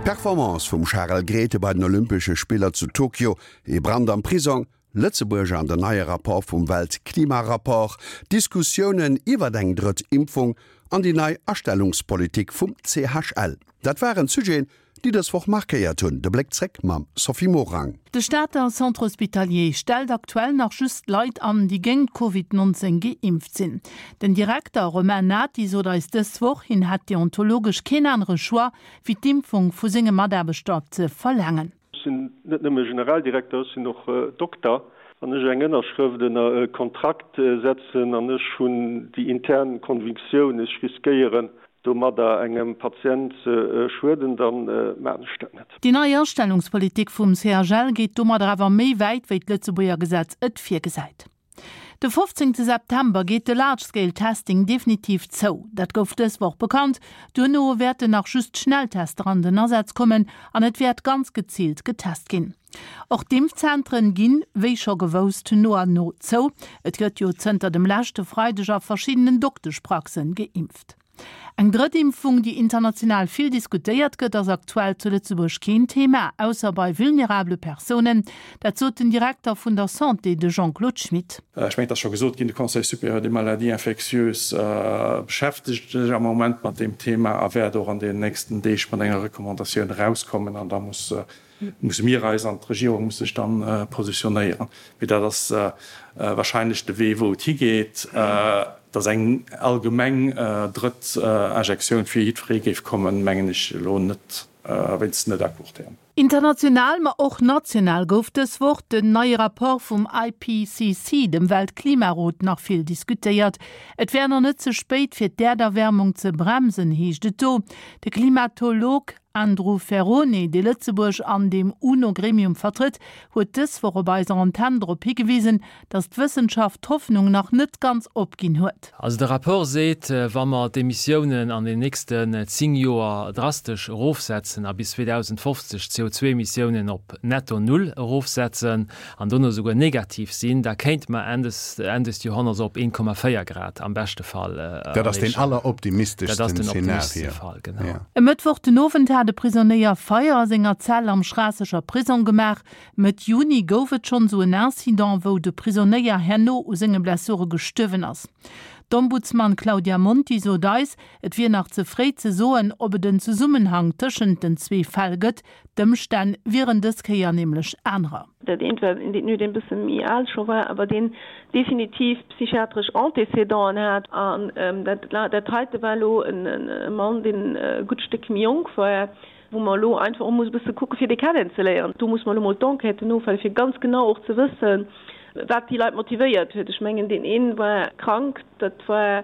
D'Performance vum Charel Grethe bei den Olympesche Spiller zu Tokio, ee Brand am Prisong, Lëtzebuerg an den neie Rapport vum Weltklimarapport, Diskussiounen iwwert eng drëtt Impfung an déi nei Astellungspolitik vum CHL, dat waren d'Sujeten, déi dës Woch markéiert hunn. De Bléck zréck mam Sophie Morang. De Stater Centre Hospitalier stellt aktuell nach just Leit an, déi géint Covid 19 geimpft sinn. Den Direkter Romain Nati sot eis dës Woch, hien hätt deontologesch keen anere Choix, wéi d'Impfung vu senge Mataarbechter ze verlaangen. Ech sinn net nëmme Generaldirekter, ech sinn och Dokter. Wann ech eng Ënnerschrëft ënner e Kontrakt setzen an ech hunn déi intern Convictioun, ech riskéieren domadder engem Patient ze schueden, da maachen ech dat net. Déi nei Astellungspolitik vum CHL geet domadder awer méi wäit, wéi d'Lëtzebuerger Gesetz et virgesäit. De 15 September geet de Large Scale Testing definitiv zou. Dat gouf dës Woch bekannt. Duerno wäerten nach just Schnelltester an den Asaz kommen an et wäert ganz geziilt getest ginn. Och d'Impfzentren ginn, wéi scho gewousst, no an no zou. Et gëtt jo zënter dem leschte Freideg a verschiddenen Dokteschpraxen geimpft. Eng drëtt Impfung, déi international vill diskutéiert gëtt, ass aktuell zu Lëtzebuerg keen Thema, ausser bei vulnerabele Persounen. Dat sot den Direkter vun der Santé, de Jean-Claude Schmit. Ech mengen, et ass scho gesot ginn, de Conseil supérieur des maladies infectieuses beschäftegt sech am Moment mat deem Thema a wäert och an deenen nächsten Deeg mat enger Recommandatioun erauskommen. An da muss musse mir eis an d'Regierung muss sech dann positionéieren. Mee dat ass wahrscheinlech de Wee, wou et higeet, dass eng allgemeng drëtt Injektioun fir jiddweree géif kommen, mengen ech elo net, wéinstens net à court terme. International, ma och national gouf dës Woch den neie Rapport vum IPCC, dem Weltklimarot, nach vill diskutéiert. Et wär nach net ze spéit, fir d'Äerderwärmung ze bremsen, heescht et do. De Klimatolog Andrew Ferrone, dee Lëtzebuerg an deem UNO-Gremium vertrëtt, huet dës Woch op eiser Antenn drop higewisen, datt d'Wëssenschaft d'Hoffnung nach net ganz opginn huet. Also de Rapport seet, wa mer d'Emissiounen an den nächsten 10 Joer drastesch erofsetzen a bis 2050 d'CO2-Emissiounen op netto Null erofsetzen, an dono souguer negativ sinn, da kéinte mer Enn des Enn des Joerhonnerts op 1,4 Grad am beschte Fall erreechen. Dat ass deen alleroptimisteschsten Dat ass den optimisteschste Fall, genau. E Mëttwoch den Owend hat e Prisonéier Feier a senger Zell am Schraasseger Prisong gemaach. Mëtt Juni gouf et schonn esou en Incident, wou de Prisonéier herno u senge Blessure gestuerwen ass. D'Ombudsman Claudia Monti sot eis, et wier nach ze fréi ze soen, ob et en Zesummenhang tëschent den zwee Fäll gëtt. D'Ëmstänn wieren dës Kéier nämlech anerer. Dat eent war een Détenu, deen e bësse méi al scho war, awer deen definitiv psychiatresch Antécédenten hat. An dat, dat heite war elo e Mann, deen e gutt Stéck méi jonk war, wou mer elo einfach och musse e bësse kucke fir dee kennenzeléieren. Do muss mer elo mol d'Enquêten ofwaarden, fir ganz genau och ze wëssen, wat déi Leit motivéiert huet. Ech mengen, deen ee war krank, dat war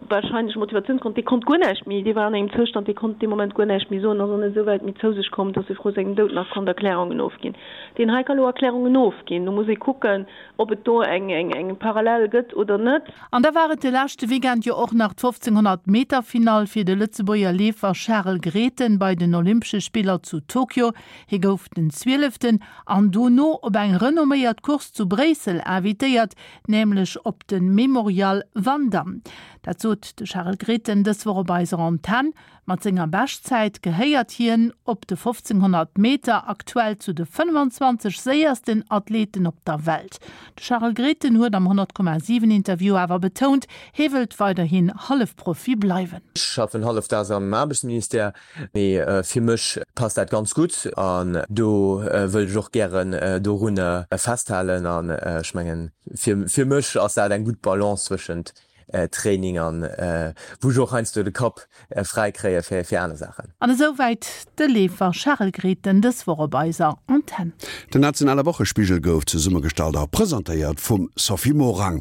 Wahrscheinlech Motivatiounsgrond, dee konnt guer näischt méi, dee war an engem Zoustand, dee konnt dee Moment guer näischt méi soen, ass och net esou wäit méi zou sech komm, dass e vru sengem Doud nach konnt Erklärungen ofginn. Deen hei ka lo Erklärungen ofginn. Do muss ee kucken, ob et do eng eng Parallel gëtt oder net. An da war et de leschte Weekend jo och nach d'Fofzénghonnert Meter Finall fir de Lëtzebuerger Leefer Charel Grethen bei den Olympesche Spiller zu Tokio. Hie gouf den Zwieleften an dono op eng renomméiert Course zu Bréissel invitéiert, nämlech op de Memorial Van Damme. Dat sot de Charel Grethen dës Woch op eiser Antenn. Mat senger Beschtzäit gehéiert hien op de 1500 Meter aktuell zu de 25 séiersten Athleten op der Welt. De Charel Grethen huet am 100,7 Interview awer betount, hie wëllt weiderhin Hallefprofi bleiwen. Ech schaffen hallefdaags am Aarbechtsministère. Mee fir mech passt dat ganz gutt an do wëllt ech och gären dorunner festhalen. An ech mengen, fir mech ass dat eng gutt Balance zwëschent Training an wou ech och heiansdo de Kapp fräi kréie fir aner Saachen. An esou wäit de Leefer Charel Grethen dës Woch op eiser Antenn. Den nationale Wochespigel gouf zesummegestallt a presentéiert vum Sophie Morang.